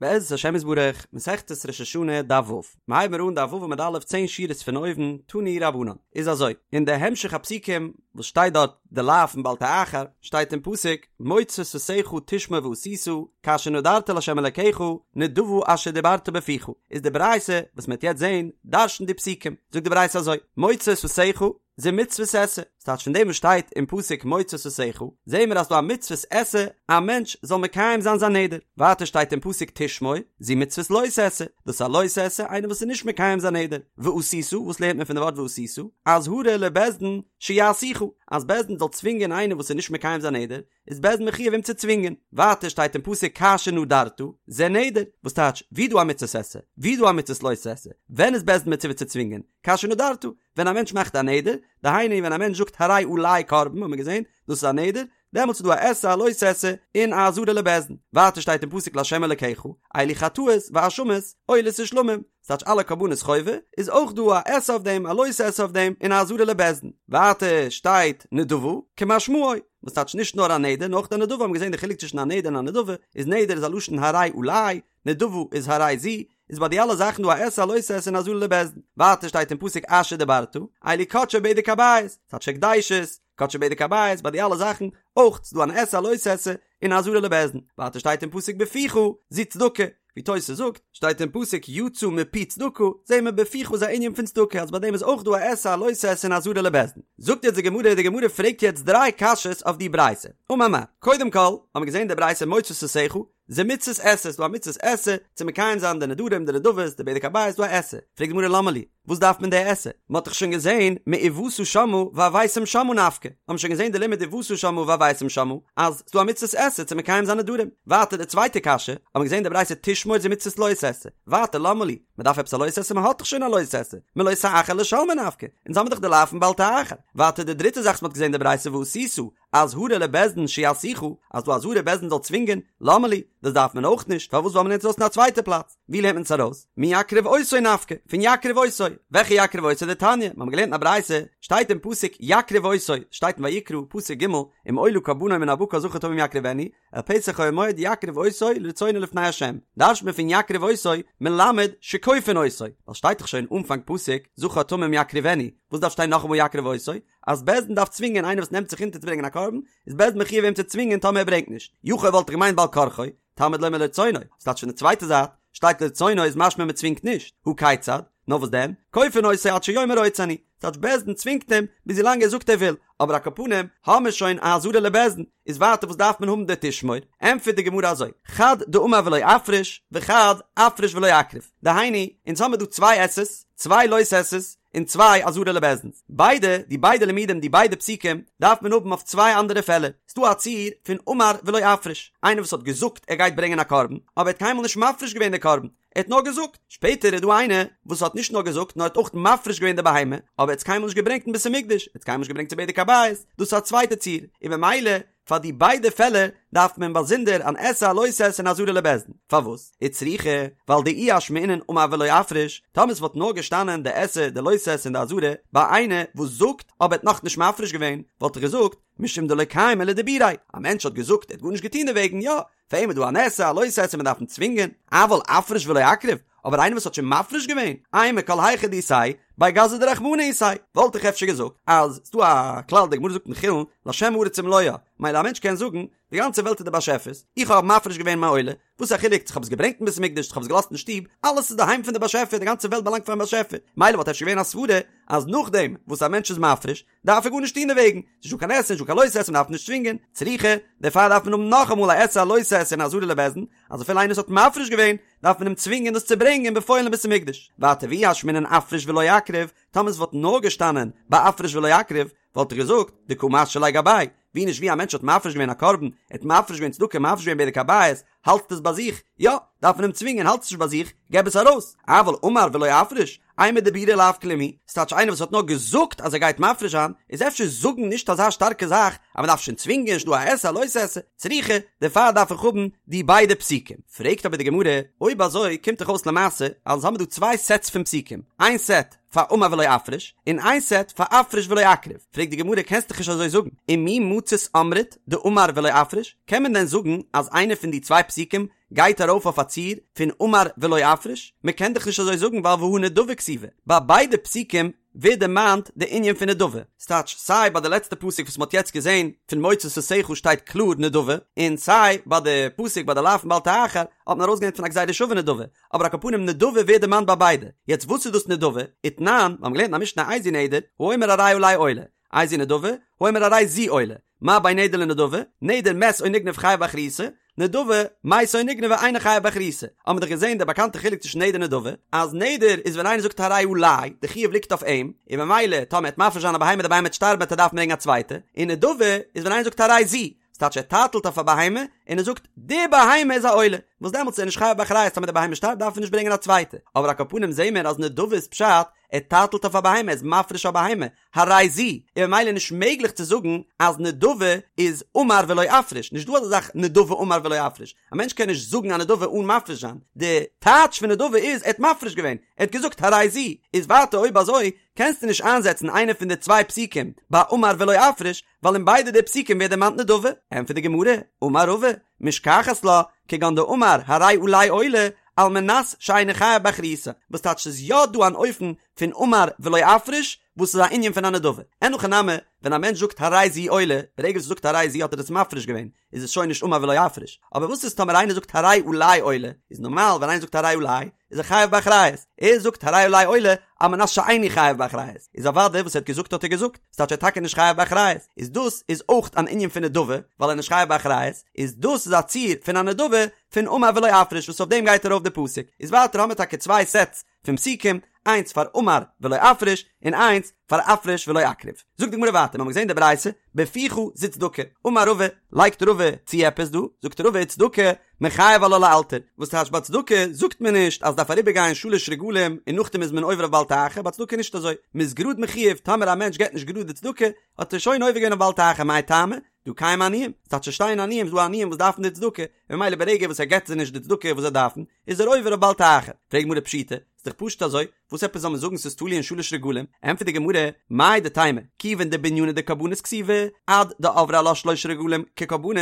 בעזרת השם יתברך, מסכת ראש השנה, דף ו'. מ'הייבן מיר אן דף ו' עמוד א', צען שורות פון אויבן, תנו רבנן. איז אזוי, אין די המשך הפסוקים וואס שטייט דארט די לאו פון בל תאחר, שטייט אין פסוק, מוצא שפתיך תשמור ועשית, כאשר נדרת לה' אלקיך, נדבה אשר דברת בפיך. איז די ברייתא וואס מ'וועט יעצט זען, דרש'נט די פסוקים. זאגט די ברייתא אזוי, מוצא שפתיך, זו מצוות עשה, ס'טייטש פון דעם וואס שטייט אין פסוק מוצא שפתיך, זעהן מיר אז ס'דא א מצוות עשה א מענטש זאל מקיים זיין זיין נדר, ווייטער שטייט אין פסוק תשמור, זו מצוות לא תעשה, דאס איז א לא תעשה איינער וואס איז נישט מקיים זיין נדר, ועשית, וואס לערנט מען פון די ווארט ועשית? אזהרה לבית דין שיעשוך, אז בית דין זאל צווינגען איינער וואס איז נישט מקיים זיין נדר, איז בית דין מחויב אים צו צווינגען. ווייטער שטייט אין פסוק כאשר נדרת, זה נדר, וואס טייטש, ווי דא א מצוות עשה, ווי דא א מצוות לא תעשה, ווען איז בית דין מצווה צו צווינגען? כאשר נדרת, ווען א מענטש מאכט א נדר, דהיינו ווען א מענטש זאגט הרי עלי קרבן האט מען געזען, דאס איז א נדר, דעמאלטס איז דא א עשה א לא תעשה, און א אזהרה לבית דין. ווייטער שטייט אין פסוק לה' אלקיך, אלו חטאות ואשמות, עולות ושלמים, ס'טייטש אלע קרבנות חובה, איז אויך דא א עשה אויף דעם, א לא תעשה אויף דעם, און א אזהרה לבית דין. ווייטער שטייט נדבה, כמשמעו, וואס טייטש נישט נאר א נדר, נאר אויך א נדבה, האבן געזען די חילוק צווישן א נדר און א נדבה, איז נדר איז א לשון הרי עלי, נדבה איז הרי זו, איז ביי די אלע זאכן דא א עשה א לא תעשה און אזהרה לבית דין. ווייטער שטייט אין פסוק אשר דברת, אלו קדשי בדק הבית, ס'טייטש הקדשות, קדשי בדק הבית, ביי די אלע זאכן אויך ס'דא אן עשה א לא תעשה און אזהרה לבית דין. ווייטער שטייט אין פסוק בפיך, זו צדקה, ווי תוס' זאגט, שטייט אין פסוק יצא מפי צדקה, זעהן מיר בפיך איז א ענין פון צדקה אז ביי דעם איז אויך דא א עשה א לא תעשה און אזהרה לבית דין. זאגט יעצט די גמרא, די גמרא פרעגט יעצט דריי קשיות אויף די ברייתא. אמר מר, קודם כל, האבן מיר געזעהן די ברייתא מוצא שפתיך, זו מצות עשה, ס'דא א מצות עשה צו מקיים זיין די נדרים, די נדבות, די בדק הבית, ס'דא א עשה. פרעגט די גמרא למה לי, וואס דארף מען די עשה? מ'האט דאך שוין געזען מובאת שמה והבאתם שמה נפקא, האט מען שוין געזען די לימוד ובאת שמה והבאתם שמה, אז ס'דא א מצות עשה צו מקיים זיין נדרים. ווייטער די צווייטע קשיא, האט מען געזען די ברייתא תשמור זו מצות לא תעשה. ווייטער למה לי, מ'דארף עפעס א לא תעשה? מ'האט דאך שוין א לא תעשה, מלא תאחר לשלמו נפקא, אונז האמיר דאך די לאו פון בל תאחר. ווייטער די דריטע זאך וואס מ'האט געזען די ברייתא ועשית, אזהרה לבית דין שיעשוך, אז דא אזהרה בית דין זאל צווינגען, למה לי, דאס דארף מען אויך נישט, פארוואס ווייל מ'לערנט עס אויס אין א צווייטע פלאץ, ווי לערנט מען עס ארויס? מיקריב אותו נפקא, פון יקריב אותו, וועלכע יקריב אותו? דתניא, מ'האמיר געלערנט אין א ברייתא, שטייט אין פסוק יקריב אותו, שטייט אין ויקרא, פסוק ג', אם עולה קרבנו מן הבקר זכר תמים יקריבנו, אל פתח אוהל מועד יקריב אותו לרצונו לפני ה', דרש'נט מען פון יקריב אותו, מלמד שכופין אותו, ווייל שטייט דאך שוין אנפאנג פסוק זכר תמים יקריבנו, וואס דארף שטיין נאכאמאל יקריב אותו? אז בית דין דארף צווינגען איינער וואס נעמט זיך אונטער צו ברענגען א קרבן, איז בית דין מחויב אים צו צווינגען טאמער ער ברענגט נישט. יכול וואלט איך געמיינט בעל כרחו, תלמוד לומר לרצונו, ס'טייטש פון די צווייטע זייט, שטייט לרצונו איז משמע מען צווינגט נישט, הא כיצד? נאר וואס דען? כופין אותו עד שיאמר רוצה אני, ס'טייטש בית דין צווינגט אים ביז ווילאנג ער זאגט ער וויל, אבער על כל פנים האמיר שוין א אזהרה לבית דין, איז ווייטער וואס דארף מען האבן די תשמור? ענטפערט די גמרא אזוי, חד דאמר ולא אפריש, וחד אפריש ולא אקריב, דהיינו, אונז האמיר דא צוויי עשה'ס, צוויי לא תעשה'ס, און צוויי אזהרה לבית דין'ס. ביידע, די ביידע לימודים, די ביידע פסוקים, דארף מען האבן אויף צוויי אנדערע פעלער. ס'דא א ציור פון אמר ולא אפריש, איינער וואס האט געזאגט ער גייט ברענגען א קרבן, אבער ער האט קיינמאל נישט מפריש געווען די קרבן, ער האט נאר געזאגט. שפעטער איז דא איינער וואס האט נישט נאר געזאגט נאר האט אויך מפריש געווען די בהמה, אבער ער האט עס קיינמאל נישט געברענגט אין בית המקדש, ער האט עס קיינמאל נישט געברענגט צו בדק הבית, דאס איז א צווייטע ציור, און במילא פאר די ביידע פעלער דארף מען באזונדער אן עשה א לא תעשה און אזהרה לבית דין. פארוואס? וצריכא, ווייל דאי אשמעינן אמר ולא אפריש, טאמער עס וואלט נאר געשטאנען די עשה, די לא תעשה און די אזהרה ביי איינער וואס זאגט אבער האט נאכנישט מפריש געווען, וואלט איך געזאגט, משום דלא קיימא לדיבוריה, א מענטש האט געזאגט ער האט גארנישט געטון דערוועגן, יא, פאר אים איז דא אן עשה, א לא תעשה, מען דארף אים צווינגען, אבל אפריש ולא אקריב, אבער איינער וואס האט שוין מפריש געווען, אימא כל היכא דאיתיה, בי גזא דרחמנא איתיה, וואלט איך אפשר געזאגט אז ס'דא א כלל די גמרא זאגט אין חולין להשם הארץ ומלואה, מילא א מענטש קען זאגן, די גאנצע וועלט איז די באשעפער'ס, איך האב מפריש געווען מיין עולה, וואס א חילוק צו כ'האב עס געברענגט אין בית המקדש צו כ'האב עס געלאזט אין שטוב, אלעס איז די היים פון די באשעפער, די גאנצע וועלט באלאנגט פארן באשעפער, מילא וואלט אפשר געווען א סברה אז נאכדעם וואס א מענטש איז מפריש, דארף ער גארנישט טון דערוועגן, ס'איז נישטא קיין עשה, נישטא קיין לא תעשה, מ'דארף נישט צווינגען, צריכא, דערפאר דארף מען האבן נאכאמאל א עשה א לא תעשה און אזהרה לבית דין, אז אפילו איינער וואס האט מפריש געווען, דארף מען אים צווינגען דאס צו ברענגען בפועל אין בית המקדש. ווייטער ואי אשמעינן אפריש ולא אקריב, טאמער עס וואלט נאר געשטאנען ביי אפריש ולא אקריב, וואלט איך געזאגט, דקא משהי ליה גביה, ווי נישט ווי א מענטש האט מפריש געווען א קרבן, ער האט מפריש געווען צדקה, מפריש געווען בדק הבית, האלטסט עס ביי זיך? יא, דארף מען אים צווינגען, האלטסט עס נישט ביי זיך, געב עס ארויס. אבל אמר ולא אפריש, אימא דיבורא לאו כלום הוא, ס'טייטש איינער וואס האט נאר געזאגט אז ער גייט מפריש זיין, איז אפשר זאגן נישט אזא שטארקע זאך אז מ'דארף שוין צווינגען, נישט דא א עשה א לא תעשה, צריכא, דערפאר דארף איך האבן די ביידע פסוקים. פרעגט אבער די גמרא, אויב אזוי קומט דאך אויס למעשה אז האמיר דא צוויי סעטס פון פסוקים, איין סעט פאר אמר ולא אפריש, און איין סעט פאר אפריש ולא אקריב, פרעגט די גמרא קענסט דאך נישט אזוי זאגן, ומי מצית אמרת דאמר ולא אפריש, קען מען דען זאגן אז איינע פון די צוויי פסוקים גייט ארויף אויף א ציור פון אמר ולא אפריש? מען קען דאך נישט אזוי זאגן ווייל והא נדבה כתיבא, ביי ביידע פסוקים ווערט דערמאנט די ענין פון נדבה, ס'טייטש סיי ביי די לעצטע פסוק וואס מ'האט יעצט געזען פון מוצא שפתיך שטייט קלאר נדבה, און סיי ביי די פסוק ביי די לאו פון בל תאחר האט מען ארויסגעלערנט פון א גזירה שווה נדבה, אבער על כל פנים נדבה ווערט דערמאנט ביי ביידע, יעצט וואס איז דאס נדבה? ותנן, מיר האבן געלערנט אין א משנה איזהו נדר, האומר הרי עלי עולה, איזו נדבה, האומר הרי זו עולה, מה בין נדר לנדבה, נדר מת או נגנב חייב באחריותו, נדבה, מתה או נגנבה אינו חייב באחריותו. האבן מיר דאך געזען די באקאנטע חילוק צווישן נדר און נדבה, אז נדר איז ווען איינער זאגט הרי עלי, די חיוב ליגט אויף אים, און ממילא טאמער ער וועט מפריש זיין א בהמה די בהמה וועט שטארבן וועט ער דארפן ברענגען א צווייטע, און נדבה איז ווען איינער זאגט הרי זו, ס'טייטש ער טייטלט אויף א בהמה, און ער זאגט די בהמה איז א עולה, וואס דעמאלטס איז ער נישט חייב באחריות טאמער די בהמה שטארבט דארף ער נישט ברענגען א צווייטע, אבער על כל פנים זעהן מיר אז נדבה איז פשט, ער טייטלט אויף א בהמה, ער איז מפריש א בהמה, הרי זו, און ממילא נישט מעגליך צו זאגן אז נדבה איז אמר ולא אפריש, נישט דא אזא זאך נדבה אמר ולא אפריש, א מענטש קען נישט זאגן א נדבה אן מפריש זיין, די טייטש פון נדבה איז ער האט מפריש געווען, ער האט געזאגט הרי זו, איז ווייטער אויב אזוי קענסטו נישט איינזעצן איינע פון די צוויי פסוקים ביי אמר ולא אפריש, ווייל אין ביידע די פסוקים ווערט דערמאנט נדבה, ענטפערט די גמרא, אמר רבא, משכחת לה, כגון דאמר הרי עלי עולה, על מנת שאיני חייב באחריותה, וואס טייטש ס'איז יא דא אן אופן פון אמר ולא אפריש, וואס איז א ענין פון א נדבה. אין הכי נמי, ווען א מענטש זאגט הרי זו עולה, ברגע וואס ער זאגט הרי זו האט ער עס מפריש געווען, איז עס שוין נישט אמר ולא אפריש. אבער וואס איז טאמער איינער זאגט הרי עלי עולה, איז נארמאל ווען איינער זאגט הרי עלי, איז ער חייב באחריות. ער זאגט הרי עלי עולה, על מנת שאיני חייב באחריות. איז אוודאי וואס ער האט געזאגט האט ער געזאגט. ס'טייטש ער איז טאקע נישט חייב באחריות. איז דאס איז אויך אן ענין פון נדבה, ווייל ער איז נישט חייב באחריות. איז דאס איז א ציור פון א נדבה פון אמר ולא אפריש וואס אויף דעם גייט ארויף די פסוק. איז ווייטער האמיר טאקע צוויי סעטס פון פסוקים, איינס פאר אמר ולא אפריש, און איינס פאר אפריש ולא אקריב. זאגט די גמרא ווייטער, מיר האבן געזען די ברייתא, בפיך זו צדקה, אמר רבא, לייגט רבא צו עפעס דא, זאגט רבא וצדקה, מיחייב עלה לאלתר, וואס טייטש ביי צדקה זאגט מען נישט אז דארף אריבער גיין שלש רגלים און נאכדעם איז מען עובר אויף בל תאחר, ביי צדקה איז נישט אזוי, מען איז גראד מחויב, טאמער א מענטש געבט נישט גראד די צדקה, האט ער שוין עובר געווען אויף בל תאחר, מאי טעמא? דהא קיימי עניים, ס'טייטש ס'שטייען עניים, ס'דא עניים וואס דארפן די צדקה, און ממילא ברגע וואס ער געבט זיי נישט די צדקה וואס זיי דארפן, איז ער עובר אויף בל תאחר. פרעגט גמרא פשיטא, ס'איז דאך פשוט אזוי, וואס עפעס זאל מען זאגן ס'איז תלוי אין שלש רגלים? ענטפערט די גמרא, מהו דתימא, כיוון דבענינא דקרבנות כתיבי, עד דעברי עלה שלשה רגלים כקרבנות,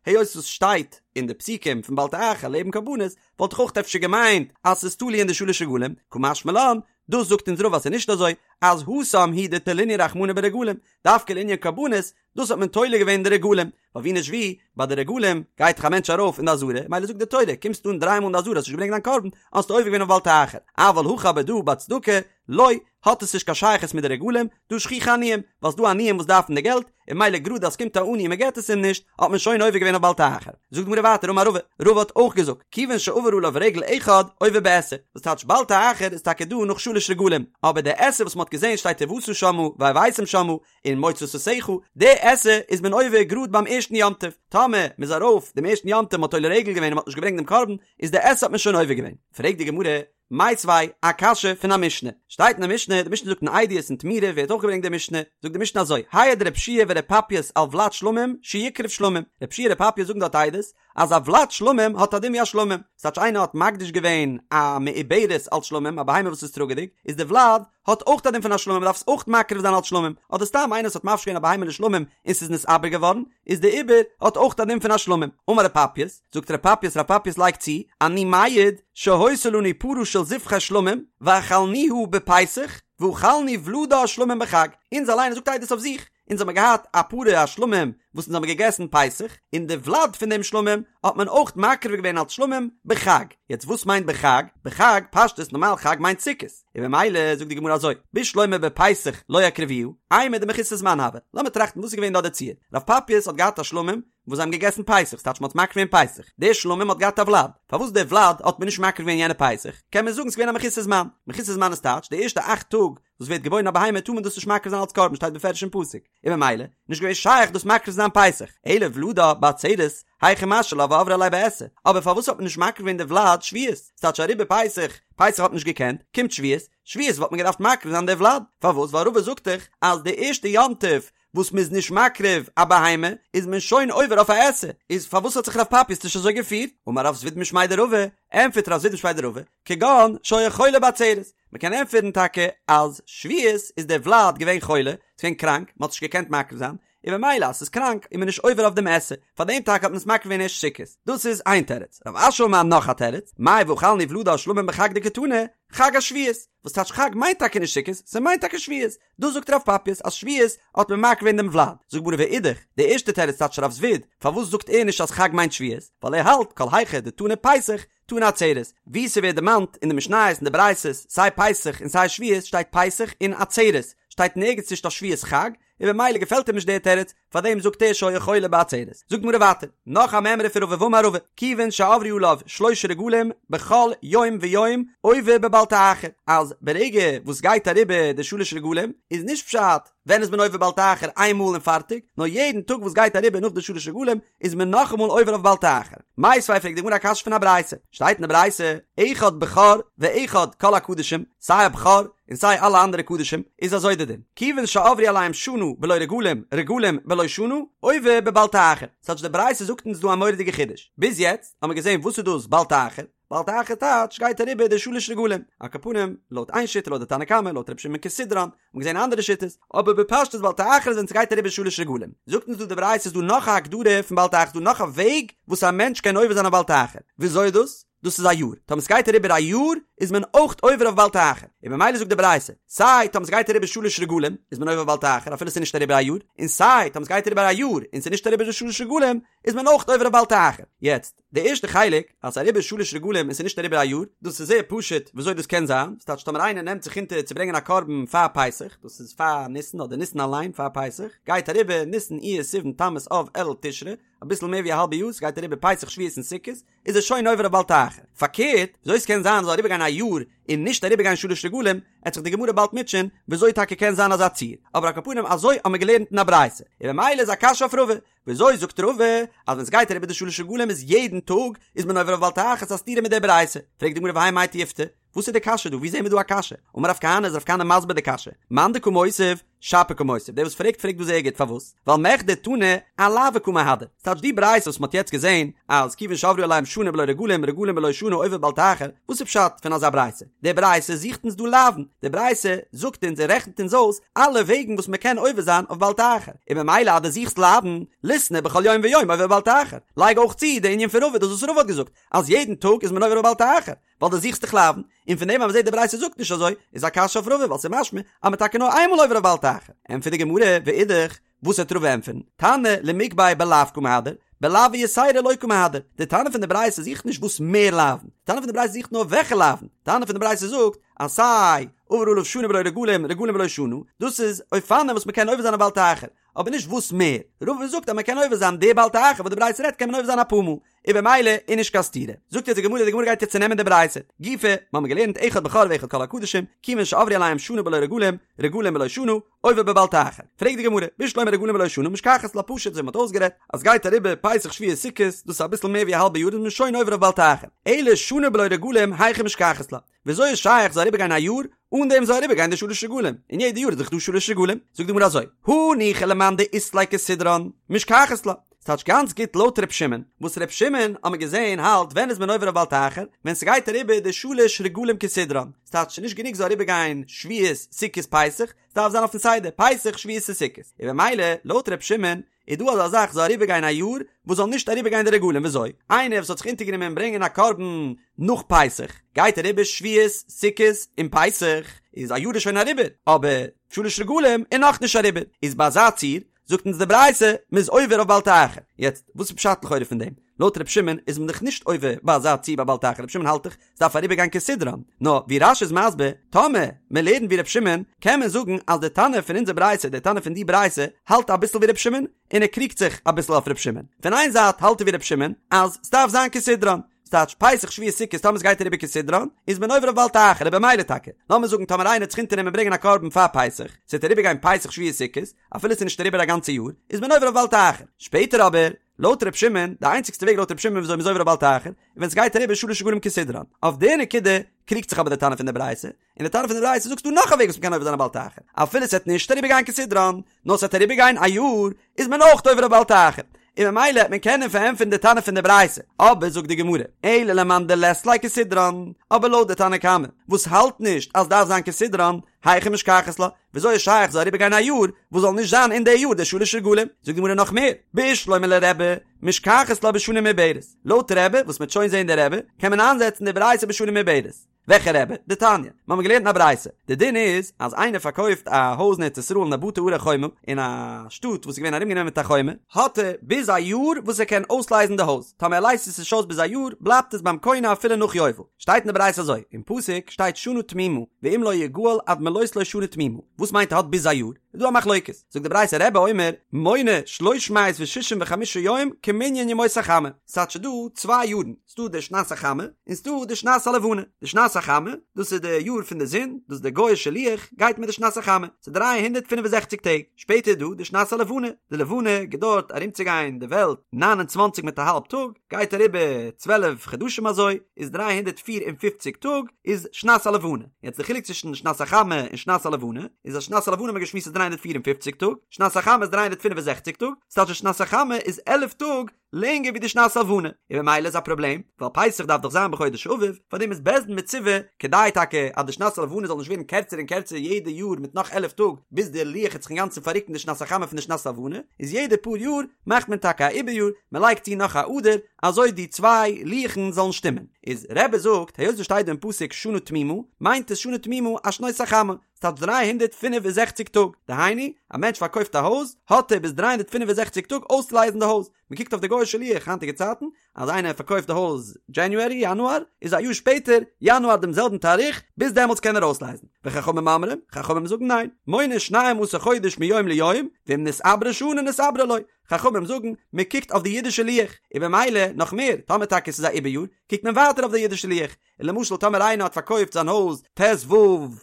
היות עס שטייט אין די פסוקים פון בל תאחר לעבן קרבנות, וואלט איך אויך אפשר געמיינט אז ס'איז תלוי אין די שלש רגלים, קא משמע לן, דאס זאגט אונז רבא אז ס'איז נישט אזוי, אז התם הוא דתלינהו רחמנא ברגלים, דווקא לענין קרבנות, דאס האט מען תולה געווען די רגלים, ווייל ווי נישט ווי, ביי די רגלים גייט דאך א מענטש ארויף אין די עזרה, מילא זאגט די תורה, קומסט אן דריי מאל אין די עזרה האסט נישט געברענגט דיין קרבן, האסטו עובר געווען אויף בל תאחר, אבל הכא אבער דא ביי צדקה, לא, האט עס נישט קיין שייכות מיט די רגלים, דהא שכיחי עניים, ווייל ס'דא עניים וואס דארפן די געלט, און מילא גראד אז ס'קומט א עני און מ'געט עס אים נישט, האט מען שוין עובר געווען אויף בל תאחר. זאגט די גמרא ווייטער אמר רבא, רבא האט אויך געזאגט, כיוון שעבר עליו רגל אחד, עובר בעשה, וואס טייטש בל תאחר איז טאקע דא נאך שלש רגלים, אבער די עשה וואס מ'האט געזען שטייט ובאת שמה והבאתם שמה, און מוצא שפתיך, די עשה איז מען עובר גראד ביים ערשטן יום טוב, טאמער מ'איז ארויף דעם ערשטן יום טוב מ'האט עולה רגל געווען און מ'האט נישט געברענגט דעם קרבן, איז די עשה האט מען שוין עובר געווען. פרעגט די גמרא, מיתיבי, א קשיא פון א משנה, שטייט אין די משנה, די משנה זאגט אין עדיות אין תמורה ווערט אויך געברענגט די משנה, זאגט די משנה אזוי, העיד רב יהושע ור' פפייס על ולד שלמים שיקרב שלמים, רב יהושע און ר' פפייס זאגן דארט עדות, אז א ולד שלמים האט א דין ווי א שלמים, ס'טייטש איינער האט מקדיש געווען א מעוברת אלס שלמים, א בהמה וואס איז טראגעדיג, איז די ולד האט אויך א דין פון א שלמים, מ'דארף עס אויך מקריב זיין אלס שלמים, אדער סתם איינער וואס האט מפריש געווען א בהמה לשלמים און ס'איז נתעבר געווארן, איז די עובר האט אויך א דין פון א שלמים. אמר ר' פפייס, זאגט ר' פפייס, ר' פפייס לייגט צו, אני מעיד שהיתה לנו פרה של זבחי שלמים ואכלנוה בפסח ואכלנו ולדה שלמים בחג, אונז אליין, ער זאגט עדות אויף זיך, אונז האמיר געהאט א פרה א שלמים וואס אונז האמיר געגעסן פסח, און די ולד פון דעם שלמים האט מען אויך מקריב געווען אלס שלמים בחג. יעצט וואס מיינט בחג? בחג, פשטות נארמאל חג מיינט סוכות, און ממילא זאגט די גמרא אזוי, בשלמא בפסח לא הקריבוה, אימור דמחוסר זמן הוה. לאמיר טראכטן וואס איז געווען דא די ציור. רב פפייס האט געהאט א שלמים וואס זיי האבן געגעסן פסח, ס'טייטש מ'האט מקריב געווען פסח, דער שלמים האט געהאט א ולד, פארוואס דער ולד האט מען נישט מקריב געווען יענע פסח, קען מען זאגן ס'איז געווען א מחוסר זמן, מחוסר זמן איז טייטש די ערשטע אכט טאג וואס ווערט געבוירן א בהמה טאר מען דאס נישט מקריב זיין אלץ קרבן שטייט בפירוש אין פסוק, און ממילא נישט געווען שייך דאס מקריב זיין פסח, אלא ולדה בעצרת, היכי משהי לה ועברי עליה בעשה, אבער פארוואס האט מען נישט מקריב געווען די ולד שבועות, ס'טייטש אריבער פסח, פסח האט מען נישט געקענט, קומט שבועות, שבועות וואלט מען געדארפט מקריב זיין די ולד, פארוואס ווייל רבא זאגט דאך אז די ערשטע יום טוב וואס מ'איז נישט מקריב א בהמה איז מען שוין עובר אויף א עשה, איז פארוואס האט זיך רב פפייס נישט אזוי געפירט? אמר רב זביד משמיה דרבא, ענטפערט רב זביד משמיה דרבא, כגון שהיה חולה בעצרת, מ'קען ענטפערן טאקע אז שבועות איז דער ולד געווען חולה, ס'איז געווען קראנק, מ'האט נישט געקענט מקריב זיין, און במילא אז ס'איז קראנק איז מען נישט עובר אויף דעם עשה, פאר דעם טאקע האט מען עס מקריב געווען ערשט סוכות. דאס איז איין תירוץ. רב אשי אמר נאך א תירוץ, מאי ואכלנו ולדה שלמים בחג דקתני, חג השבועות, וואס טייטש חג מיינט טאקע נישט סוכות, ס'מיינט טאקע שבועות, דאס זאגט רב פפייס אז שבועות האט מען מקריב געווען דעם ולד, זאגט די גמרא ואידך, די ערשטע תירוץ טייטש רב זביד, פארוואס זאגט ער נישט אז חג מיינט שבועות, ווייל ער האלט כל היכא דתנא פסח תנא עצרת, ווי ס'ווערט דערמאנט אין די משניות און די ברייתות סיי פסח און סיי שבועות שטייט פסח און עצרת, שטייט נערגעץ נישט אויף שבועות חג, און במילא געפעלט אים נישט דער תירוץ, פארדעם זאגט ער שהיה חולה בעצרת. זאגט די גמרא ווייטער, נאך א מימרא פון רבא ואמר רבא, כיוון שעברו עליו שלשה רגלים בכל יום ויום עובר בבל תאחר, אז ברגע וואס גייט אריבער די שלש רגלים איז נישט פשט ווען איז מען עובר בל תאחר איין מאל און פארטיג, נאר יעדן טאג וואס גייט אריבער נאך די שלש רגלים איז מען נאכאמאל עובר אויף בל תאחר. מיתיבי פרעגט די גמרא א קשיא פון א ברייתא, שטייט אין די ברייתא, אחד בכור ואחד כל הקדשים, סיי א בכור און סיי אלע אנדערע קדשים, איז אזוי די דין, כיוון שעברו עליהם שנה בלא רגלים, רגלים בלא שנה, עובר בבל תאחר. ס'טייטש די ברייתא זאגט אונז דא א מורא'דיגע חידוש. ביז יעצט האמיר געזען וואס איז דאס בל תאחר, בל תאחר טייטש גייט אריבער די שלש רגלים, על כל פנים לויט איין שיטה לויט די תנא קמא, לויט רבי שמעון כסדרן, האט מען געזען אנדערע שיטות, אבער בפשטות בל תאחר איז ווען ס'גייט אריבער שלש רגלים. זאגט אונז דא די ברייתא איז דא נאך א הגדרה פון בל תאחר, איז דא נאך א וועג וואס א מענטש קען עובר זיין אויף בל תאחר. וויאזוי איז דאס? דאס איז א יאר, טאמער סגייט אריבער א יאר איז מען אויך עובר אויף בל תאחר, און ממילא זאגט די ברייתא, סיי טאמער סגייט אריבער שלש רגלים איז מען עובר בל תאחר אפילו ס'איז נישט אריבער א יאר, און סיי טאמער סגייט אריבער א יאר און ס'איז נישט אריבער די שלש רגלים איז מען אויך עובר אויף בל תאחר. יעצט, די ערשטע חלק, אז ס'איז אריבער שלש רגלים און ס'איז נישט אריבער א יאר, דאס איז זייער פשוט וויאזוי דאס קען זיין, ס'טייטש טאמער איינער נעמט זיך אונטער צו ברענגען א קרבן פאר פסח, דאס איז פאר ניסן אדער ניסן אליין פאר פסח, גייט אריבער ניסן אייר סיוון תמוז אב אלול תשרי, אביסל מער ווי א האלבע יאר, ס'גייט אריבער פסח שבועות און סוכות, איז ער שוין עובר אויף בל תאחר. פארקערט, וויאזוי ס'קען זיין זאל אריבערגיין א יאר און נישט אריבערגיין שלש רגלים, עט זיך די גמרא באלד מוטשען וויאזוי טאקע קען זיין אזא ציור, אבער על כל פנים אזוי האמיר געלערנט אין א ברייתא, און ממילא איז א קשיא אויף רבא, וויאזוי זאגט רבא אז ווען ס'גייט אריבער די שלש רגלים איז יעדן טאג איז מען עובר אויף בל תאחר, ס'איז א סתירה מיט די ברייתא, פרעגט די גמרא והאי מאי תיובתא, וואס איז די קשיא דא? ווי זעהן מיר דא א קשיא? אמר רב כהנא איז רב כהנא מסביר די קשיא, מאן דקא מותיב, שפיר קא מותיב, דער וואס פרעגט פרעגט דא זייער גוט, פארוואס? ווייל מכדי תנא אלאוי קא מהדר, ס'טייטש די ברייתא וואס מ'האט יעצט געזעהן אז כיוון שעברו עליהם שנה בלא רגלים רגלים בלא שנה עובר בל תאחר, וואס איז פשט פון אזא ברייתא? די ברייתא זוכט אונז דא לאוין, די ברייתא זאגט אונז און רעכנט אונז אויס אלע וועגן וואס מ'קען עובר זיין אויף בל תאחר, און ממילא אז דו זוכסט לאוין, ליתני בכל יום ויום עובר בל תאחר, לייג אויך צו די ענין פון רבא דאס וואס רבא האט געזאגט אז יעדן טאג איז מען עובר אויף בל תאחר, ווייל דו זוכסט דאך לאוין, און פון דעם אז מ'זעט די ברייתא זאגט נישט אזוי, איז א קשיא אויף רבא ווייל ס'איז משמע אז מ'איז טאקע נאר איינמאל עובר אויף בל תאחר. ענטפערט די גמרא, ואידך, וואס וועט רבא ענטפערן? תנא למיגבי בלאו קא מהדר, בלאו יתירא לא קא מהדר. די תנא פון די ברייתא זוכט נישט וואס מער לאוין, די תנא פון די ברייתא זוכט נאר וועלכע לאוין. די תנא פון די ברייתא זאגט אז סיי עבר עליו שנה בלא רגלים, רגלים בלא שנה, דאס איז אופנים וואס מ'קען עובר זיין אויף בל תאחר, אבער נישט וואס מער. רבא זאגט אז מ'קען עובר זיין די בל תאחר וואס די ברייתא רעדט קען מען עובר זיין אפאר מאל. און במילא איז נישט קיין סתירה. זאגט יעצט די גמרא, די גמרא גייט יעצט צונעמען די ברייתא. גופא, מיר האבן געלערנט אחד בכור ואחד כל הקדשים, כיוון שעברו עליהם שנה בלא רגלים, רגלים בלא שנה, עובר בבל תאחר. פרעגט די גמרא, בשלמא רגלים בלא שנה משכחת לה פשוט אזוי מ'האט אויסגערעדט, אז גייט אריבער פסח שבועות סוכות, דאס איז אביסל מער ווי א האלבע יאר איז מען שוין עובר אויף בל תאחר. אלא שנה בלא רגלים היכי משכחת לה. וויאזוי איז שייך זאל אריבערגיין א יאר אן דעם זאל אריבערגיין די שלש רגלים, און יעדע יאר איז דאך דא שלש רגלים? זאגט די גמרא אזוי, הניחא למאן דאית ליה כסדרן, משכחת לה. ס'טייטש גאנץ גוט לויט ר' שמעון, וואס ר' שמעון האט מען געזען האלט ווען איז מען עובר אויף בל תאחר, ווען ס'גייט אריבער די שלש רגלים כסדרן, ס'טייטש ס'נישט גענוג זאל אריבערגיין שבועות סוכות פסח, ס'דארף זיין אויפן סדר פסח שבועות און סוכות, און במילא לויט ר' שמעון איז דא אזא זאך זאל אריבערגיין א יאר וואס זאל נישט אריבערגיין די רגלים וויאזוי? איינער וואס האט זיך אונטערגענומען ברענגען א קרבן נאך פסח גייט אריבער שבועות סוכות און פסח איז א יאר איז שוין אריבער אבער שלש רגלים איז נאכנישט אריבער איז ביי אזא ציור זאגט אונז די ברייתא מ'איז עובר אויף בל תאחר יעצט וואס איז פשט לכאורה פון דעם? לויט ר' שמעון איז מען דאך נישט עובר ביי אזא ציור ביי בל תאחר ר' שמעון האלט דאך ס'דארף אריבערגיין כסדרן, נאר ווי רש"י איז מסביר, טאמער מען לערנט ווי ר' שמעון, קען מען זאגן אז די תנא פון אונזער ברייתא, די תנא פון די ברייתא, האלט אביסל ווי ר' שמעון, און ער קריגט זיך אביסל אויף ר' שמעון. פון איין זייט האלט ער ווי ר' שמעון, אז ס'דארף זיין כסדרן, ס'טייטש פסח שבועות סוכות טאמער ס'גייט אריבער כסדרן, איז מען עובר אויף בל תאחר, און במילא טאקע, לאמיר זאגן טאמער איינער האט זיך אונטערנומען ברענגען א קרבן פאר פסח, ס'וועט אריבערגיין פסח שבועות סוכות, אפילו ס'איז נישט אריבער א גאנצע יאר, איז מען עובר אויף בל תאחר. שפעטער אבער, לויט ר' שמעון, די איינציגסטע וועג לויט ר' שמעון וויאזוי מ'איז עובר אויף בל תאחר, איז ווען ס'גייט אריבער שלש רגלים כסדרן. אויף די נקודה קריגט זיך אבער די תנא פון די ברייתא, און די תנא פון די ברייתא זאגט ס'דא נאך א וועג וואס מ'קען עובר זיין אויף בל תאחר, אפילו ס'וועט נישט אריבער גיין כסדרן, נאר ס'וועט אריבער גיין א יאר, איז מען אויך עובר אויף בל תאחר. און ממילא העט מען קענען פארענטפערן די תנא פון די ברייתא, אבער זאגט די גמרא, אלא למאן דלית ליה כסדרן, אבער לויט די תנא קמא וואס האלט נישט אז דארף זיין כסדרן, היכי משכחת לה, וויאזוי איז שייך זאל אריבער גיין א יאר וואס זאל נישט זיין אין די יאר די שלש רגלים? זאגט די גמרא נאך מער, בשלמא לרבי, משכחת לה בשנה מעוברת, לויט רבי, וואס מ'העט שוין זעהן די רבי, קען מען איינזעצן די ברייתא בשנה מעוברת. וועלכע רבי? דתניא, מיר האבן געלערנט אין א ברייתא, די דין איז אז איינער פארקויפט א הויז אין ארץ ישראל אין א בתי ערי חומה, אין א שטאט וואס איז געווען ארומגענומען מיט א חומה, האט ער ביז א יאר וואס ער קען אויסלייזן די הויז, טאמער ער לייזט עס נישט אויס ביז א יאר, בלייבט עס ביים קונה אפילו נאך יובל. שטייט אין די ברייתא אזוי, אין פסוק שטייט שנה תמימה, ואם לא יגאל עד מלאות לו שנה תמימה, וואס מיינט ער האט ביז א יאר? איז דא א מחלוקת, זאגט די ברייתא רבי אומר, מונה שלוש מאות ושישים וחמישה יום כמנין ימות החמה, ס'טייטש ס'דא צוויי יארן, ס'דא די שנת החמה, און ס'דא די שנת הלבנה, די שנת החמה, דאס איז די יאר פון די זון, דאס די גוי'אישע לוח גייט מיט די שנת החמה, ס'איז 365 טעג, שפעטער איז דא די שנת הלבנה, די לבנה געדויערט ארומצוגיין די וועלט 29 מיט א האלב טאג, גייט אריבער 12 חדשים אזוי, איז 354 טאג איז שנת הלבנה, יעצט די חילוק צווישן שנת החמה און שנת הלבנה, איז אז שנת הלבנה האט מען געשמועסט איז 354 טאג, שנת החמה איז 365 טאג, ס'טייטש אז שנת החמה איז 11 טאג לענגער ווי די שנת הלבנה, און ממילא איז א פראבלעם, ווייל פסח דארף דאך זיין בחודש אביב, פארדעם איז בית דין מצווה, כדי טאקע אז די שנת הלבנה זאל נישט ווערן קערצער און קערצער יעדע יאר מיט נאך 11 טאג, ביז די לוח העט זיך אינגאנצן פאררוקן די שנת החמה פון די שנת הלבנה, איז יעדע פאר יאר מאכט מען טאקע א עיבור יאר, מען לייגט צו נאך א אדר, אזוי די צוויי לוח'ן זאלן שטימען. איז רבי זאגט, היות עס שטייט דא אין פסוק שנה תמימה, מיינט עס שנה תמימה א שנות החמה, ס'טייטש 365 טאג, דהיינו, א מענטש פארקויפט א הויז, האט ער ביז 365 טאג אויסצולייזן די הויז, מען קוקט אויף די גוי'אישע לוח היינטיגע צייטן, אז איינער פארקויפט די הויז January, יאנואר, איז א יאר שפעטער, יאנואר דעם זעלבן תאריך, ביז דעמאלטס קען ער אויסלייזן. וחכמים אומרים, חכמים זאגן ניין, מונה שנים עשר חודש מיום ליום, ואם נתעברה שנה נתעברה לו, חכמים זאגן, מען קוקט אויף די אידישע לוח, און במילא, נאך מער, טאמער טאקע עס איז א עיבור יאר, קוקט מען ווייטער אויף די אידישע לוח, און למשל טאמער איינער האט פארקויפט זיין הויז ט ו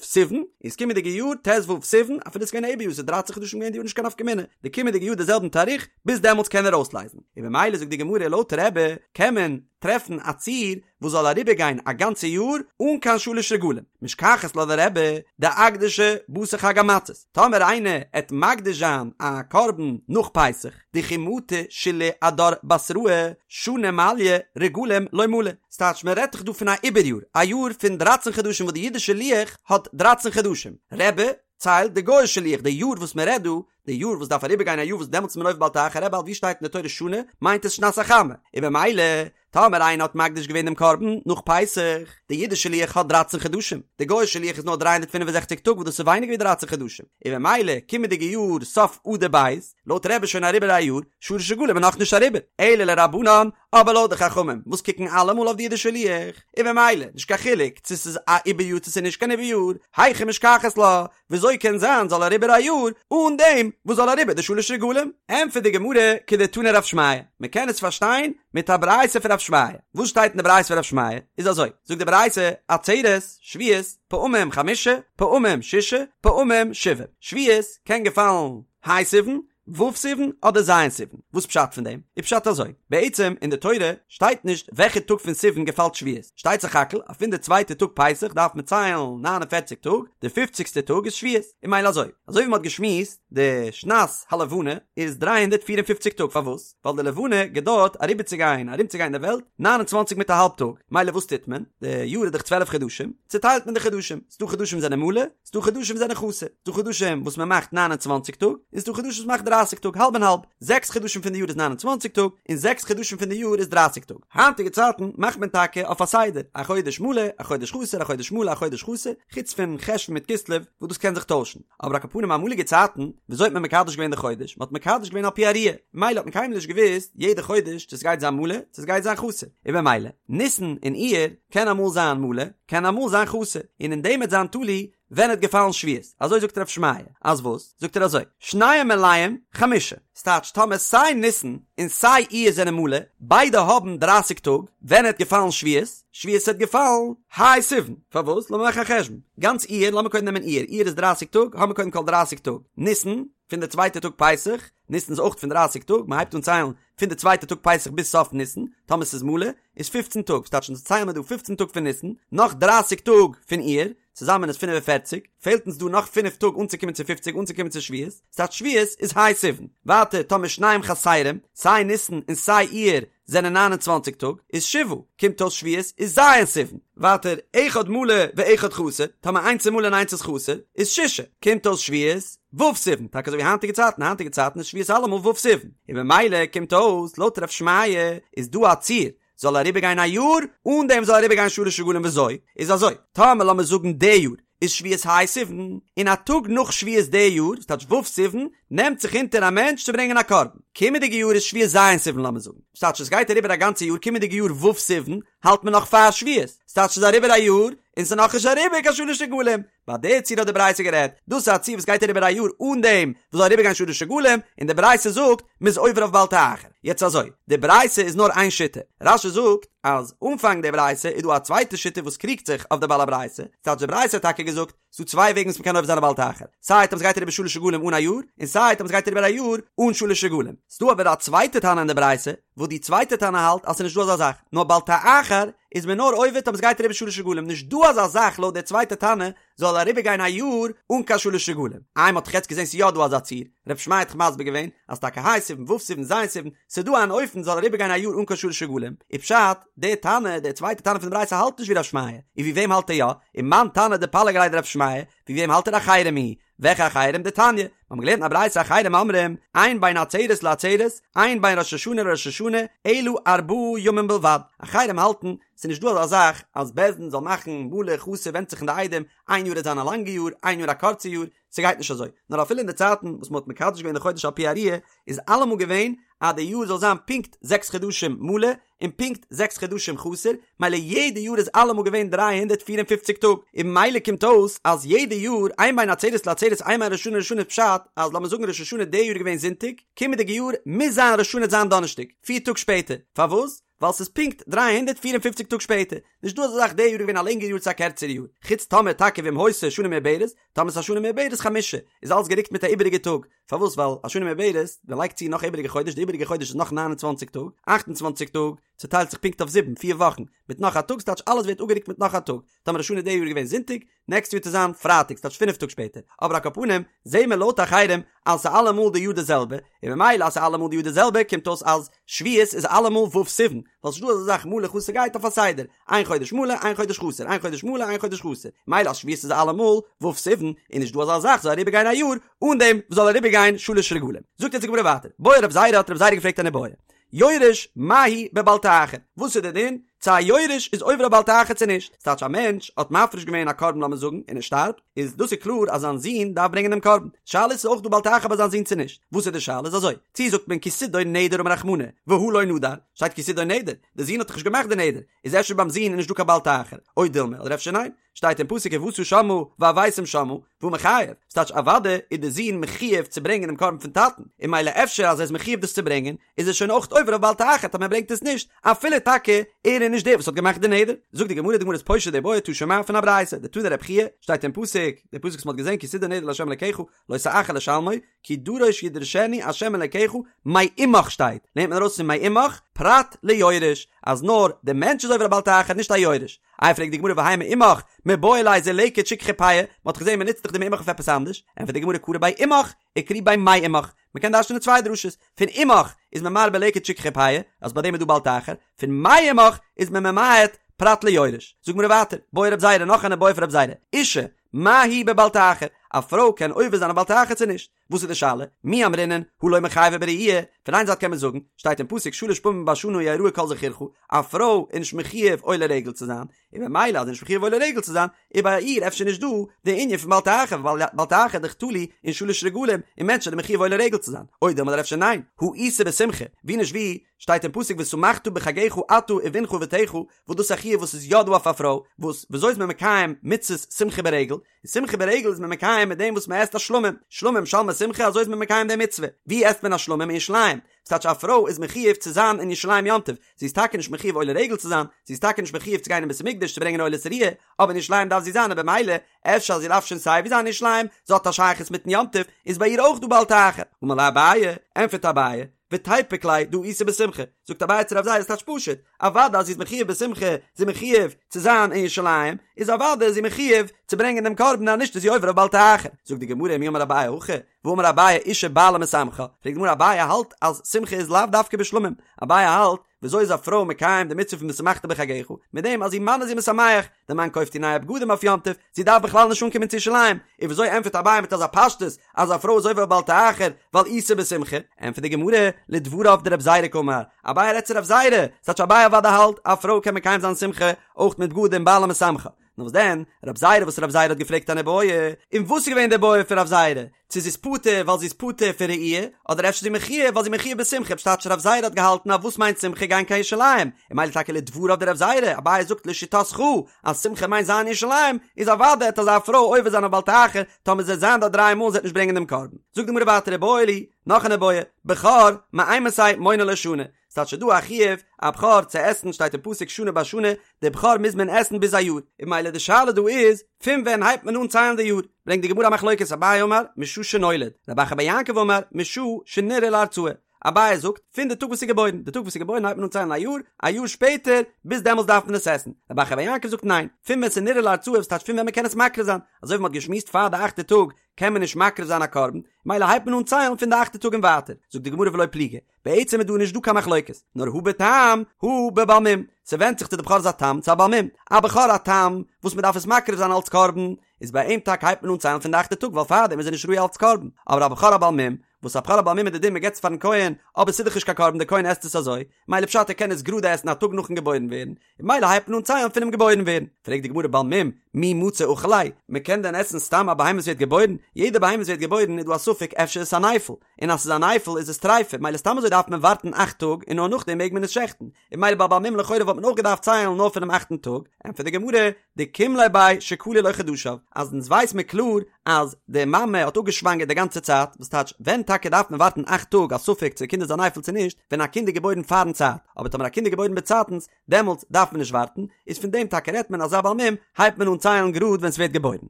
סיוון, איז קומענדיגע יאר ט ו סיוון, אפילו עס איז געווען א עיבור יאר, ס'איז דרייצן חדשים געווען די יאר נישט קיין נפקא מינה, די קומענדיגע יאר די זעלבן תאריך, ביז דעמאלטס קען ער אויסלייזן. און במילא זאגט די גמרא לויט רבי קען מען טרעפן א ציור וואס זאל אריבערגיין א גאנצע יאר אן קיין שלש רגלים, משכחת לה לרבי דאקדשה בתר חג המצות, טאמער איינער עט מקדיש זיין א קרבן נאך פסח, דכי מטו שלהי אדר בתראי שנה מליא רגלים לא מלו, ס'טייטש מען רעדט דאך דא פון א עיבור יאר, א יאר פון דרייצן חדשים וואס די אידישע לוח האט דרייצן חדשים, רבי ציילט די גוי'אישע לוח די יאר וואס מען רעדט דא, די יאר וואס דארף אריבער גיין א יאר וואס דעמאלטס איז מען עובר בל תאחר רבי האלט ווי שטייט אין די תורה שנה מיינט עס שנת החמה, און במילא טאמער איינער האט מקדיש געווען דעם קרבן נאך פסח, די אידישע לוח האט דרייצן חדשים, די גוי'אישע לוח איז נאר 365 טאג וואס דאס איז ווייניגער ווי דרייצן חדשים, און במילא קומענדיגע יאר סוף אדר ב', לויט רבי איז שוין אריבער א יאר, שלש רגלים איז נאכנישט אריבער, אלא לרבנן, אבער לויט די חכמים וואס קוקן אלעמאל אויף די אידישע לוח, און במילא נישט קיין חילוק צו ס'איז א עיבור יאר צו ס'איז נישט קיין עיבור יאר, היכי משכחת לה, וויאזוי קען זיין זאל אריבער א יאר אן דעם וואס זאל אריבער די שלש רגלים? ענטפערט די גמרא כדתני רב שמעיה, מען קען עס פארשטיין מיט א ברייתא פון רב שמעיה, וואס שטייט אין די ברייתא פון רב שמעיה איז אזוי, זאגט די ברייתא, עצרת, שבועות, פעמים חמשה, פעמים ששה, פעמים שבעה, שבועות קען געפאלן ה' סיוון, ו' סיוון אדער ז' סיוון? וואס פשט פון דעם? איז פשט אזוי, בעצם אין די תורה שטייט נישט וועלכע טאג פון סיוון געפאלט שבועות, שטייט סך הכל אז פון די צווייטע טאג פסח דארף מען ציילן 49 טאג, די פופציגסטע טאג איז שבועות, און ממילא אזוי, אזוי ווי מען האט געשמועסט, די שנת הלבנה איז 354 טאג, פארוואס? ווייל די לבנה געדויערט אריבערצוגיין ארומצוגיין די וועלט 29 מיט א האלב טאג, ממילא וואס טוט מען? די יאר איז דאך 12 חדשים, צוטיילט מען די חדשים, ס'דא חדשים זענען מלא, ס'דא חדשים זענען חסר, ס'דא חדשים וואס מען מאכט 29 טאג, און ס'דא חדשים וואס מען מאכט 30 טאג, האלב און האלב, זעקס חדשים פון די יאר איז 29 טאג, און זעקס חדשים פון די יאר איז 30 טאג. היינטיגע צייטן מאכט מען טאקע אויף א סדר, א חודש מלא, א חודש חסר, א חודש מלא, א חודש חסר, חוץ פון חשוון מיט כסלו וואס דאס קען זיך טוישן. אבער על כל פנים אמאליגע צייטן, וויאזוי האט מען מקדש געווען די חודש? מען האט מקדש געווען על פי הראיה, ממילא האט מען קיינמאל נישט געוואוסט יעדע חודש צו ס'גייט זיין מלא, צו ס'גייט זיין חסר, און במילא, ניסן און אייר, קען אמאל זיין מלא, קען אמאל זיין חסר, און אין דעם וועט זיין תלוי ווען עט געפאלן שבועות, אזוי זאגט רב שמעיה, אז וואס? זאגט ער אזוי, שניהם מלאים חמשה, ס'טייטש טאמער סיי ניסן און סיי אייר זענען מלא, ביידע האבן דרייסיג טאג, ווען עט געפאלן שבועות? שבועות עט געפאלן ה' סיוון, פארוואס? לאמיר מאכן א חשבון, גאנץ אייר, לאמיר קודם נעמען אייר, אייר איז דרייסיג טאג, האמיר קודם כל דרייסיג טאג, ניסן? פון די צווייטע טאג פסח, ניסן איז אויך פון דרייסיג טאג, מען הייבט אן ציילן פון די צווייטע טאג פסח ביז סוף ניסן, טאמער ס'איז מלא, איז פופצן טאג, ס'טייטש אונז ציילן מיר דא פופצן טאג פון ניסן, נאך דרייסיג טאג פון אייר, צוזאמען איז פינף און פערציג, פעלט אונז דא נאך פינף טאג אנצוקומען צו פופציג אנצוקומען צו שבועות, ס'טייטש שבועות איז ה' סיוון. ווייטער טאמער שניהם חסרים, סיי ניסן און סיי אייר זענען ניין און צוואנציג טאג, איז שבעה, קומט אויס שבועות איז ז' סיוון. ווייטער אחד מלא ואחד חסר, טאמער איינס איז מלא און איינס איז חסר, איז שישה, קומט אויס שבועות ו' סיוון, טאקע אזוי ווי היינטיגע צייטן, היינטיגע צייטן איז שבועות אלעמאל ו' סיוון, און במילא קומט אויס לויט רב שמעיה איז דא א ציור זאל אריבערגיין א יאר אן דעם זאל אריבערגיין שלש רגלים וויאזוי איז אזוי טאמער לאמיר זאגן די יאר איז שבועות ה' סיוון און א טאג נאך שבועות די יאר ס'טייטש ו' סיוון נעמט זיך אונטער א מענטש צו ברענגען א קרבן קומענדיגע יאר איז שבועות ז' סיוון לאמיר זאגן ס'טייטש עס גייט אריבער א גאנצע יאר קומענדיגע יאר ו' סיוון האלט מען נאך פאר שבועות ס'טייטש ס'איז אריבער א יאר און ס'איז נאכנישט אריבער קיין שלש רגלים ביי די ציור האט די ברייתא גערעדט, דאס איז א ציור וואס גייט אריבער א יאר אן דעם וואס זאל אריבערגיין שלש רגלים, און די ברייתא זאגט מ'איז עובר אויף בל תאחר. יעצט אזוי, די ברייתא איז נאר איין שיטה, רש"י זאגט אז אנפאנג די ברייתא איז דא א צווייטע שיטה וואס קריגט זיך אויף די בעל הברייתא, ס'טייטש די ברייתא האט טאקע געזאגט ס'דא צוויי וועגן וואס מ'קען עובר זיין א בל תאחר, סיי טאמער ס'גייט אריבער שלש רגלים אן א יאר, און סיי טאמער ס'גייט אריבער א יאר אן שלש רגלים. ס'דא אבער א צווייטע תנא אין די ברייתא, וואס די צווייטע תנא האלט אז ס'איז נישט דא אזא זאך, נאר בל תאחר איז מען נאר עובר טאמער ס'גייט אריבער שלש רגלים, נישט דא אזא זאך לויט די צווייטע תנא זאל אריבער גיין א יאר אן קיין שלש רגלים. איי מ'האט דאך יעצט געזען ס'איז יא דא אזא ציור, רב שמעיה האט דאך מסביר געווען אז טאקע ה' סיוון ו' סיוון ז' סיוון, ס'איז דא אן אופן זאל אריבער גיין א יאר אן קיין שלש רגלים, איז פשט, די תנא, די צווייטע תנא פון די ברייתא האלט נישט ווי רב שמעיה, און ווי וועם האלט ער יא? ומאן תנא דפליג עליה דרב שמעיה, ווי וועם האלט ער אחרים היא? וועלכע אחרים? דתניא, מיר האבן געלערנט אין א ברייתא אחרים אומרים, אין בין עצרת לעצרת, אין בין ראש השנה לראש השנה, אלא ארבעה ימים בלבד. אחרים האלטן, ס'איז נישט דא אזא זאך אז בית דין זאל מאכן מלא חסר ווענדט זיך אין די עדים, איין יאר וועט זיין א לאנגע יאר, איין יאר א קורצע יאר, ס'גייט נישט אזוי. נאר אפילו אין די צייטן וואס מ'האט מקדש געווען די חודש על פי הראיה, איז אלעמאל געווען אז די יאר זאל זיין פונקט זעקס חדשים מלא, און פונקט זעקס חדשים חסר, מילא יעדע יאר איז אלעמאל געווען 354 טאג, און מילא קומט אויס אז יעדע יאר אין בין עצרת לעצרת אין בין ראש השנה לראש השנה איז פשט אז לאמיר זאגן ראש השנה די יאר איז געווען זונטאג, קומענדיגע יאר מוז זיין ראש השנה זיין דאנערשטאג, פיר טאג שפעטער, פארוואס? ווייל ס'איז פונקט 354 טאג שפעטער, נישט דא אזא זאך די יאר איז געווען א לענגערע יאר צו א קערצערע יאר, חוץ טאמער טאקע ואם היתה שנה מעוברת, טאמער ס'איז א שנה מעוברת חמשה, איז אלס גערוקט מיט א איבעריגע טאג, פארוואס ווייל א שנה מעוברת, מען לייגט צו נאך א איבעריגע חודש, די איבעריגע חודש איז נאך 29 טאג, 28 טאג צוטיילט זיך פונקט אויף זיבן, פיר וואכן, מיט נאך א טאג, ס'טייטש אלעס ווערט אפגערוקט מיט נאך א טאג, טאמער ראש השנה די יאר איז געווען זונטאג, נעקסט יאר וועט עס זיין פרייטאג, ס'טייטש פינף טאג שפעטער, אבער על כל פנים, זעהן מיר לויט אחרים אז ס'איז אלעמאל די יאר די זעלבע, און ממילא אז ס'איז אלעמאל די יאר די זעלבע קומט אויס אז שבועות איז אלעמאל ו' סיוון, ווייל ס'נישט דא אזא זאך מלא חסר גייט אויף א סדר, איין חודש מלא איין חודש חסר איין חודש מלא איין חודש חסר, מילא אז שבועות איז אלעמאל ו' סיוון איז נישט דא אזא זאך זאל אריבער גיין א יאר אן דעם וואס זאל אריבער גיין שלש רגלים. זאגט יעצט די גמרא ווייטער, בעי רב זירא האט רב זירא געפרעגט אן איבעיא, יורש מהו בבל תאחר, וואס איז די דין צו א יורש איז עובר אויף בל תאחר צו נישט, ס'טייטש א מענטש האט מפריש געווען א קרבן לאמיר זאגן און ער שטארבט, איז דאס איז קלאר אז זיין זון דארף ברענגען דעם קרבן, שאלה איז ס'איז אויך דא בל תאחר ביי זיין זון צו נישט, וואס איז די שאלה איז אזוי, צו זאגט מען כי תדור נדר אמר רחמנא, והא לא נדר, שטייט כי תדור נדר, די זון האט דאך נישט געמאכט די נדר, איז אפשר ביים זון איז נישט דא קיין בל תאחר, או דילמא, אדער אפשר ניין, שטייט אין פסוק ובאת שמה והבאתם שמה, והא מיחייב, ס'טייטש אוודאי איז די זון מחויב צו ברענגען דעם קרבן פון טאטן, און מילא אפשר אז ער איז מחויב דאס צו ברענגען, איז ער שוין אויך עובר אויף בל תאחר טאמער ער ברענגט עס נישט, אפילו טאקע ער איז נישט דער וואס האט געמאכט די נדר. זאגט די גמרא, די גמרא איז פושט די בעיא תא שמע פון א ברייתא, דתני רבי חייא, שטייט אין פסוק, די פסוק וואס מ'האט געזען כי תדור נדר לה' אלקיך, לא תאחר לשלמו, כי דרוש ידרשנו ה' אלקיך מעמך שטייט, לערנט מען ארויס פון מעמך פרט ליורש, אז נאר די מענטש איז עובר א בל תאחר נישט א יורש. איי פרעגט די גמרא והאי מעמך מיבעי ליה זה לקט שכחה פאה, מען האט געזען מען נוצט דאך די מעמך אויף עפעס אנדערש, ענטפערט די גמרא קרי ביה עמך, וקרי ביה מעמך, מען קען דרש'נען צוויי דרשות, פון עמך איז מען מרבה לקט שכחה פאה, אז ביי דעם איז דא בל תאחר, פון מעמך איז מען ממעט פרט ליורש. זאגט גמרא ווייטער, בעי רב זירא נאך אן איבעיא פון רב זירא, אשה, מהו בבל תאחר, א פרוי קען עובר זיין א בל תאחר צו נישט? וואס איז די שאלה? מי אמרינן הא לא מיחייבא בראי', פון איין זייט קען מען זאגן, שטייט אין פסוק שלש פעמים בשנה יראה כל זכורך, א פרוי איז נישט מחויב עולה רגל צו זיין, און ממילא אז זי איז נישט מחויב עולה רגל צו זיין, איז ביי איר אפשר נישט דא די ענין פון בל תאחר, ווייל בל תאחר איז דאך תלוי אין שלש רגלים, און מענטשן זענען מחויב עולה רגל צו זיין, או דילמא אדער אפשר ניין, הא איתא בשמחה, ווי נישט ווי, שטייט אין פסוק ושמחת בחגך אתה ובנך ובתך, וואס דאס איז א חיוב וואס איז יא דא אויף א פרוי, וואס וויאזוי איז מען מקיים מצות שמחה ברגל? און שמחה ברגל איז מען מקיים מיט דעם וואס מען עסט א שלמים, שלמים שלמי שמחה אזוי איז מען מקיים די מצוה, ווי עסט מען א שלמים אין ירושלים? ס'טייטש א פרוי איז מחויב צו זיין אין ירושלים יום טוב, זי איז טאקע נישט מחויב עולה רגל צו זיין, זי איז טאקע נישט מחויב צו גיין אין בית המקדש צו ברענגען עולת ראיה, אבער אין ירושלים דארף זי זיין און במילא אפשר אז זי דארף שוין סיי ווי זיין אין ירושלים, זי האט א שייכות מיטן יום טוב, איז ביי איר אויך דא בל תאחר. אמר ליה אביי, ענטפערט אביי, ותיפוק ליה דהא איתא בשמחה, זאגט אביי צו רב זירא ס'טייטש פשוט, אוודאי אז זי איז מחויב בשמחה, זי איז מחויב צו זיין אין ירושלים, איז אוודאי איז זי מחויב צו ברענגען דעם קרבן אז נישט איז זי עובר אויף בל תאחר. זאגט די גמרא מי אמר אביי הכי, והאמר אביי אשה בעלה משמחה, פרעגט די גמרא אביי האלט אז שמחה איז לאו דווקא בשלמים, אביי האלט וויאזוי איז א פרוי מקיים די מצוה פון ושמחת בחגך? מיט דעם אז איר מאן איז איר משמח, דער מאן קויפט איר נייע בגדים אויף יום טוב, זי דארף בכלל נישט אנקומען צו ירושלים, און וויאזוי ענטפערט אביי מיט אזא פשטות אז א פרוי איז עובר בל תאחר ווייל איתא בשמחה? ענטפערט די גמרא, לדבריו דרב זירא קאמר, אביי רעדט צו רב זירא, ס'טייטש אביי אוודאי האלט א פרוי קען מקיים זיין שמחה אויך מיט בגדים בעלה משמחה, נאר וואס דען, רב זירא וואס רב זירא האט געפרעגט אן איבעיא, און וואס איז געווען די בעיא פון רב זירא? צו זי איז פטור ווייל זי איז פטור פון ראי', אדער אפשר זי מחויב ווייל זי מחויב בשמחה, פשט טייטש רב זירא האט געהאלטן אז וואס מיינט שמחה גיין קיין ירושלים, און מילא טאקע לדבריו דרב זירא, אביי זאגט לשיטתך אז שמחה מיינט זיין אין ירושלים, איז אוודאי העט אזא פרוי עובר זיין אויף בל תאחר, טאמער זי וועט זיין דארט דריי מאל און זי וועט נישט ברענגען דעם קרבן. זאגט די גמרא ווייטער איבעיא להו, נאך אן איבעיא, בכור, מאימתי מונין לו שנה, ס'טייטש ס'דא א חיוב א בכור צו עסן שטייט אין פסוק שנה בשנה, די בכור מוז מען עסן ביז א יאר, און מילא די שאלה דא איז פון ווען הייבט מען אן ציילן די יאר, ברענגט די גמרא א מחלוקת אביי אמר משעה שנולד, רב אחא בר יעקב אמר משעה שנראה להרצאה, אביי זאגט פון די טאג וואס איז געבוירן, די טאג וואס איז געבוירן הייבט מען אן ציילן א יאר, א יאר שפעטער ביז דעמאלס דארף מען עס עסן, רב אחא בר יעקב זאגט ניין, פון ווען ס'איז נראה להרצאה וואס טייטש פון ווען מ'קען עס מקריב זיין, אזוי ווי מ'האט געשמועסט פאר די אכטע טאג קען מען נישט מקריב זיין א קרבן, מילא הייבט מען אן ציילן פון די אכטע טאג און ווייטער, זאגט די גמרא ולא פליגי, בעצם איז דא נישט דא קיין מחלוקת, נאר הא בתם הא בבעל מום, ס'ווענדט זיך צו די בכור איז א תם צו א בעל מום, א בכור א תם וואס מ'דארף עס מקריב זיין אלץ קרבן, איז ביי אים טאקע הייבט מען אן ציילן פון די אכטע טאג ווייל פארדעם איז ער נישט ראוי אלץ קרבן, אבער א בכור א בעל מום, וואס א בכור א בעל מום איז די דין מ'געבט עס פארן כהן, אבער ס'איז דאך נישט קיין קרבן די כהן עסט עס אזוי, מילא פשט ער קען עס גראדע עסן א טאג נאכן געבוירן ווערן, און מילא הייבט מען אן ציילן פונעם געבוירן ווערן. פרעגט די גמרא בעל מום, מי מצי אכיל ליה, מ'קען דען עסן סתם א בהמה וואס ווערט געבוירן? יעדע בהמה וואס ווערט געבוירן איז דא א ספק אפשר איז עס א נפל, און אז ס'איז א נפל איז עס טריפה, מילא סתם אזוי דארף מען ווארטן אכט טאג און נאר נאכדעם מעג מען עס שעכטן, און מילא ביי בעל מום לכאורה וואלט מען אויך געדארפט ציילן נאר פונעם אכטן טאג, ענטפערט די גמרא, דקים ליה ביה שכלו לו חדשיו, אז אונז ווייס מיר קלאר אז די מאמע האט אפגעשוואנגערט די גאנצע צייט, וואס טייטש ווען טאקע דארף מען ווארטן אכט טאג א ספק צו די קינד איז א נפל צו נישט, ווען א קינד איז געבוירן פארן צייט, אבער טאמער א קינד איז געבוירן באצייטנס, דעמאלטס דארף מען נישט ווארטן, איז פון דעם טאקע רעדט מען אז א בעל מום הייבט מען אן ציילן גראד ווען ס'ווערט געבוירן.